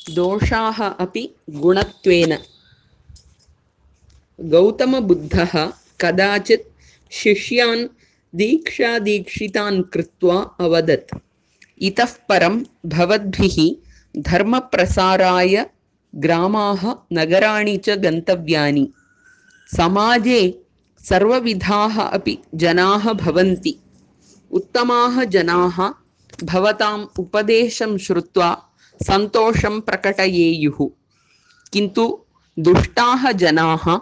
दोषाः अपि गुणत्वेन। गौतमबुद्धः कदाचित् शिष्यान् दीक्षादीक्षितान् कृत्वा अवदत्, इतः परं भवद्भिः धर्मप्रसाराय ग्रामाः नगराणि च गन्तव्यानि। समाजे सर्वविधाः अपि जनाः भवन्ति। उत्तमाः जनाः भवताम् उपदेशं श्रुत्वा सन्तोषं प्रकटयेयुः, किन्तु दुष्टाः जनाः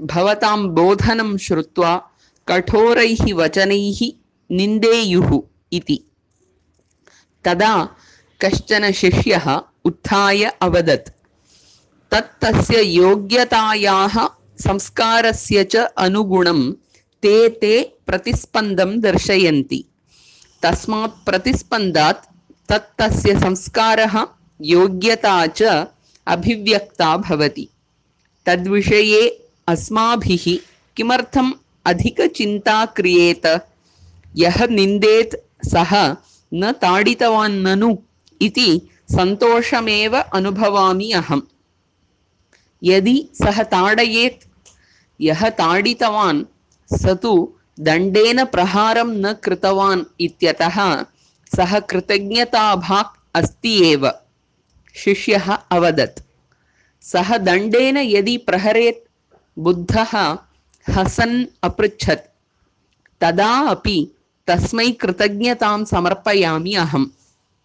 भवतां बोधनं श्रुत्वा कठोरैः वचनैः निन्देयुः इति। तदा कश्चन शिष्यः उत्थाय अवदत्, तस्य योग्यतायाः संस्कारस्य च अनुगुणं ते प्रतिस्पन्दं दर्शयन्ति। तस्मात् प्रतिस्पन्दात् तस्य संस्कारः योग्यता च अभिव्यक्ता भवति। तद्विषये अस्माभिः किमर्थम् अधिकचिन्ता क्रियेत? यः निन्देत् सः न ताडितवान् ननु इति सन्तोषमेव अनुभवामि अहम्। यदि सः ताडयेत्, यः ताडितवान् स तु दण्डेन प्रहारं न कृतवान् इत्यतः सः कृतज्ञताभाक् अस्ति एव। शिष्यः अवदत्, सः दण्डेन यदि प्रहरेत्? बुद्धः हसन् अपृच्छत्, तदा अपि तस्मै कृतज्ञतां समर्पयामि अहम्।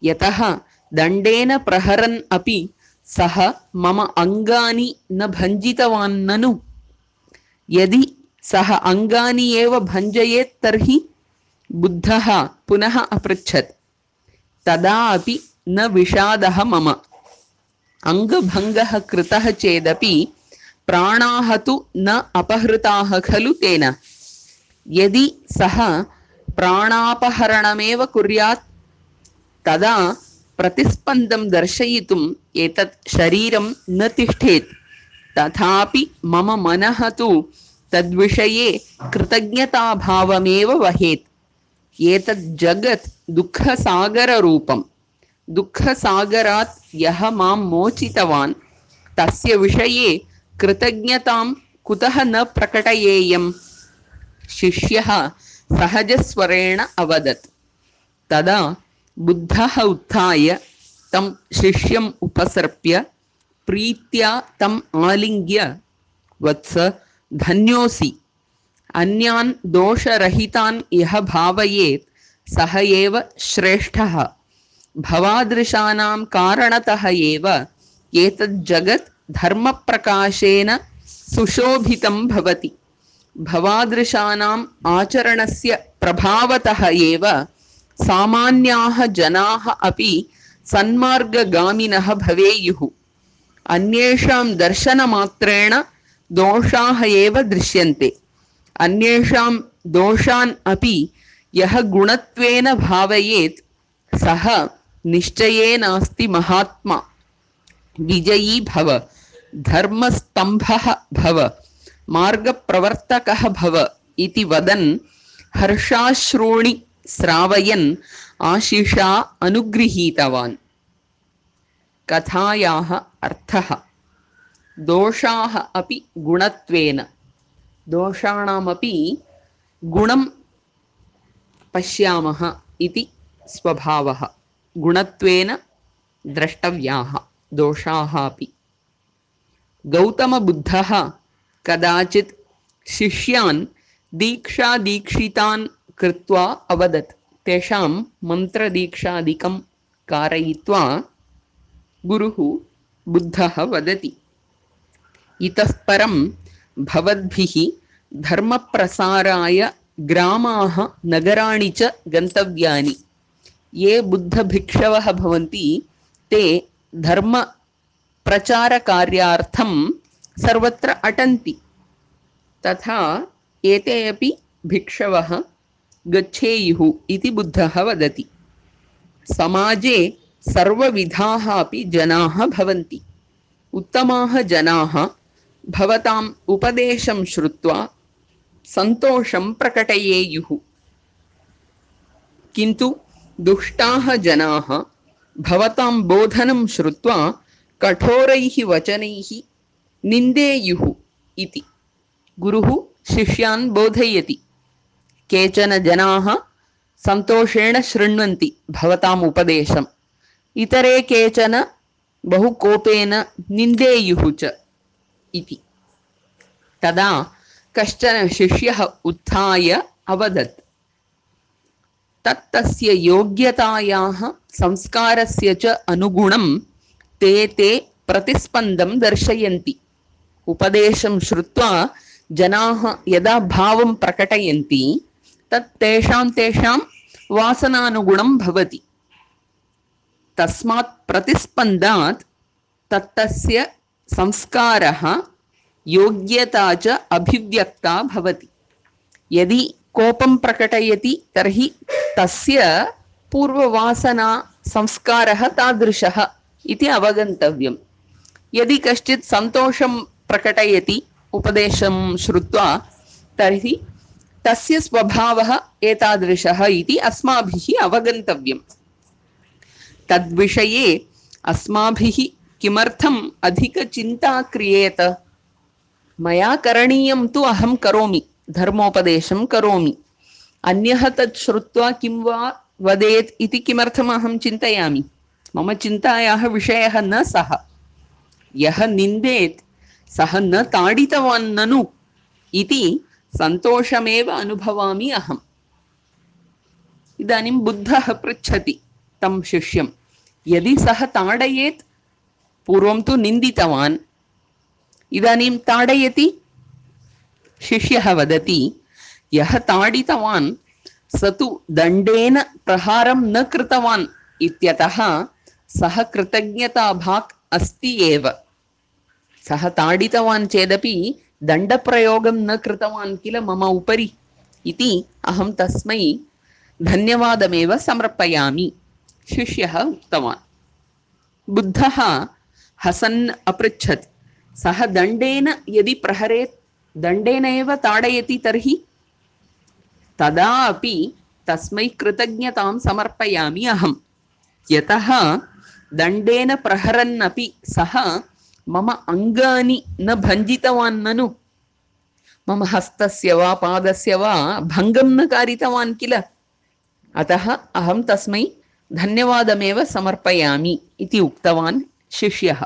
यतः दण्डेन प्रहरन् अपि सः मम अङ्गानि न भञ्जितवान् ननु। यदि सः अङ्गानि एव भञ्जयेत् तर्हि? बुद्धः पुनः अपृच्छत्, तदा अपि न विषादः मम। अङ्गभङ्गः कृतः चेदपि प्राणाः तु न अपहृताः खलु तेन। यदि सः प्राणापहरणमेव कुर्यात् तदा प्रतिस्पन्दं दर्शयितुम् एतत् शरीरं न तिष्ठेत्। तथापि मम मनः तु तद्विषये कृतज्ञताभावमेव वहेत्। एतत् जगत् दुःखसागररूपम्। दुःखसागरात् यः मां मोचितवान् तस्य विषये कृतज्ञतां कुतः न प्रकटयेयम्? शिष्यः सहजस्वरेण अवदत्। तदा बुद्धः उत्थाय तं शिष्यम् उपसर्प्य प्रीत्या तम् आलिङ्ग्य, वत्स, धन्योऽसि। अन्यान् दोषरहितान् यः भावयेत् सः एव श्रेष्ठः। भवादृशानां कारणतः एव एतत् जगत् धर्मप्रकाशेन सुशोभितं भवति। भवादृशानाम् आचरणस्य प्रभावतः एव सामान्याः जनाः अपि सन्मार्गगामिनः भवेयुः। अन्येषां दर्शनमात्रेण दोषाः एव दृश्यन्ते। अन्येषां दोषान् अपि यः गुणत्वेन भावयेत् सः निश्चयेनास्ति महात्मा। विजयी भव, धर्मस्तंभः भव, मार्गप्रवर्तकः भव इति वदन् हर्षाश्रूणि श्रावयन् आशिषा अनुगृहीतवान्। कथायाः अर्थः। दोषाः अपि गुणत्वेन। दोषाणामपि गुणं पश्यामः इति स्वभावः। गुणत्वेन द्रष्टव्याः दोषाः अपि। गौतमबुद्धः कदाचित् शिष्यान् दीक्षादीक्षितान् कृत्वा अवदत्। तेषां मन्त्रदीक्षादिकं कारयित्वा गुरुः बुद्धः वदति, इतः परं भवद्भिः धर्मप्रसाराय ग्रामाः नगराणि च गन्तव्यानि। ये बुद्धभिक्षवः भवन्ति ते धर्मप्रचारकार्यार्थं सर्वत्र अटन्ति। तथा एते अपि भिक्षवः गच्छेयुः इति बुद्धः वदति। समाजे सर्वविधाः अपि जनाः भवन्ति। उत्तमाः जनाः भवताम् उपदेशं श्रुत्वा सन्तोषं प्रकटयेयुः, किन्तु दुष्टाः जनाः भवतां बोधनं श्रुत्वा कठोरैः वचनैः निन्देयुः इति गुरुः शिष्यान् बोधयति। केचन जनाः सन्तोषेण शृण्वन्ति भवताम् उपदेशम्, इतरे केचन बहु कोपेन निन्देयुः च इति। तदा कश्चन शिष्यः उत्थाय अवदत्, तस्य योग्यतायाः संस्कारस्य च अनुगुणं ते प्रतिस्पन्दं दर्शयन्ति। उपदेशं श्रुत्वा जनाः यदा भावं प्रकटयन्ति तत् तेषां वासनानुगुणं भवति। तस्मात् प्रतिस्पन्दात् तस्य संस्कारः योग्यता च अभिव्यक्ता भवति। यदि कोपं प्रकटयति तर्हि तस्य पूर्ववासना संस्कारः तादृशः इति अवगन्तव्यम्। यदि कश्चित् सन्तोषं प्रकटयति उपदेशं श्रुत्वा तर्हि तस्य स्वभावः एतादृशः इति अस्माभिः अवगन्तव्यम्। तद्विषये अस्माभिः किमर्थम् अधिकचिन्ता क्रियेत? मया करणीयं तु अहं करोमि, धर्मोपदेशं करोमि। अन्यः तत् श्रुत्वा किं वा वदेत् इति किमर्थम् अहं चिन्तयामि? मम चिन्तायाः विषयः न सः। यः निन्देत् सः न ताडितवान् ननु इति सन्तोषमेव अनुभवामि अहम्। इदानीं बुद्धः पृच्छति तं शिष्यं, यदि सः ताडयेत्, पूर्वं तु निन्दितवान्, इदानीं ताडयति? शिष्यः वदति, यः ताडितवान् स तु दण्डेन प्रहारं न कृतवान् इत्यतः सः कृतज्ञताभाक् अस्ति एव। सः ताडितवान् चेदपि दण्डप्रयोगं न कृतवान् किल मम उपरि इति अहं तस्मै धन्यवादमेव समर्पयामि, शिष्यः उक्तवान्। बुद्धः हसन् अपृच्छत्, सः दण्डेन यदि प्रहरेत्, दण्डेन एव ताडयति तर्हि? तदा अपि तस्मै कृतज्ञतां समर्पयामि अहम्, यतः दण्डेन प्रहरन्नपि सः मम अङ्गानि न भञ्जितवान् ननु, मम हस्तस्य वा पादस्य वा भङ्गं न कारितवान् किल, अतः अहं तस्मै धन्यवादमेव समर्पयामि इति उक्तवान् शिष्यः।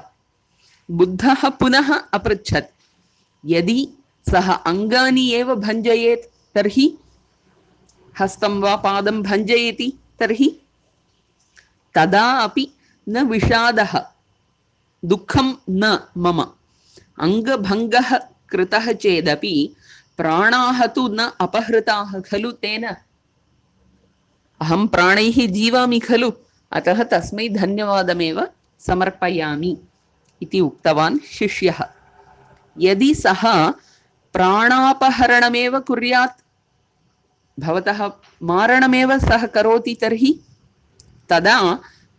बुद्धः पुनः अपृच्छत्, यदि सः अङ्गानि एव भञ्जयेत् तर्हि? हस्तं वा पादं भञ्जयति तर्हि? तदा अपि न विषादः, दुःखं न मम। अङ्गभङ्गः कृतः चेदपि प्राणाः तु न अपहृताः खलु तेन। अहं प्राणैः जीवामि खलु, अतः तस्मै धन्यवादमेव समर्पयामि इति उक्तवान् शिष्यः। यदि सः प्राणापहरणमेव कुर्यात्, भवतः मारणमेव सः करोति तर्हि? तदा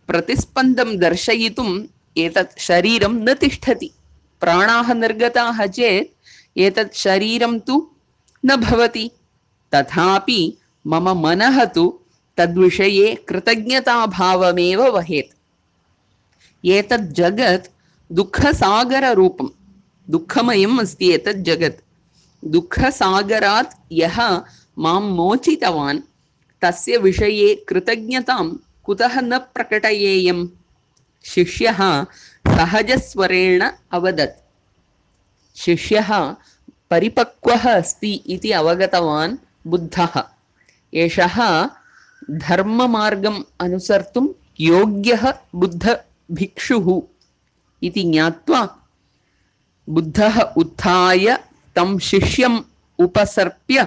प्रतिस्पन्दं दर्शयितुम् एतत् शरीरं न तिष्ठति। प्राणाः निर्गताः चेत् एतत् शरीरं तु न भवति। तथापि मम मनः तु तद्विषये कृतज्ञताभावमेव वहेत्। एतत् जगत् दुःखसागररूपं, दुःखमयम् अस्ति एतत् जगत्। दुःखसागरात् यः मां मोचितवान् तस्य विषये कृतज्ञतां कुतः न प्रकटयेयम्? शिष्यः सहजस्वरेण अवदत्। शिष्यः परिपक्वः अस्ति इति अवगतवान् बुद्धः। एषः धर्ममार्गम् अनुसर्तुं योग्यः बुद्धभिक्षुः इति ज्ञात्वा बुद्धः उत्थाय तं शिष्यम् उपसर्प्य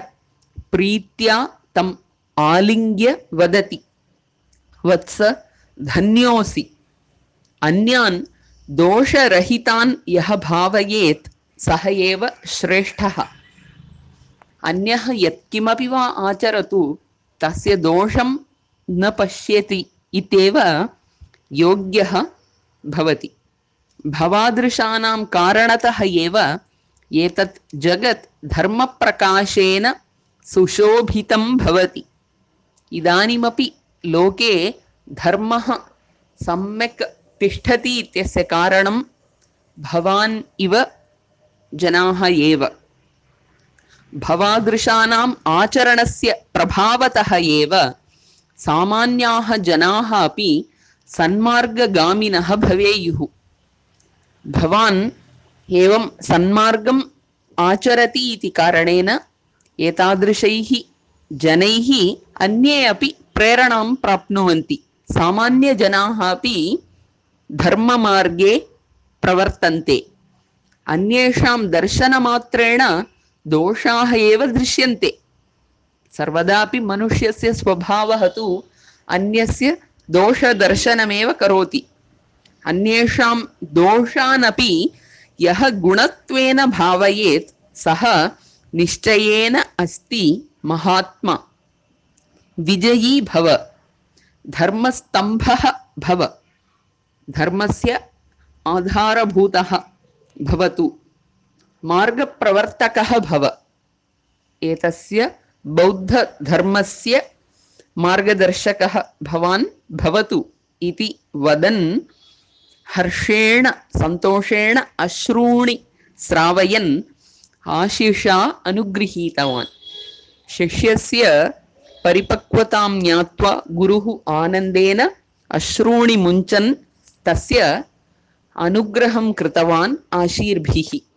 प्रीत्या तम् आलिङ्ग्य वदति, वत्स धन्योऽसि। अन्यान् दोषरहितान् यः भावयेत् सः एव श्रेष्ठः। अन्यः यत्किमपि वा आचरतु तस्य दोषं न पश्यति इत्येव योग्यः भवति। भवादृशानां कारणतः एव एतत् जगत् धर्मप्रकाशेन सुशोभितं भवति। इदानीमपि लोके धर्मः सम्यक् तिष्ठति इत्यस्य कारणं भवान् इव जनाः एव। भवादृशानाम् आचरणस्य प्रभावतः एव सामान्याः जनाः अपि सन्मार्गगामिनः भवेयुः। भवान् एवं सन्मार्गम् आचरति इति कारणेन एतादृशैः जनैः अन्ये अपि प्रेरणां प्राप्नुवन्ति। सामान्यजनाः अपि धर्ममार्गे प्रवर्तन्ते। अन्येषां दर्शनमात्रेण दोषाः एव दृश्यन्ते। सर्वदापि मनुष्यस्य स्वभावः तु अन्यस्य दोषदर्शनमेव करोति। अन्येषां दोषानपि यः गुणत्वेन भावयेत् सः निश्चयेन अस्ति महात्मा। विजयी भव, धर्मस्तम्भः भव, धर्मस्य आधारभूतः भवतु, मार्गप्रवर्तकः भव। एतस्य बौद्धधर्मस्य मार्गदर्शकः भवान् भवतु इति वदन् हर्षेण सन्तोषेण अश्रूणि श्रावयन् आशिषा अनुगृहीतवान्। शिष्यस्य परिपक्वतां ज्ञात्वा गुरुः आनन्देन अश्रूणि मुञ्चन् तस्य अनुग्रहं कृतवान् आशीर्भिः।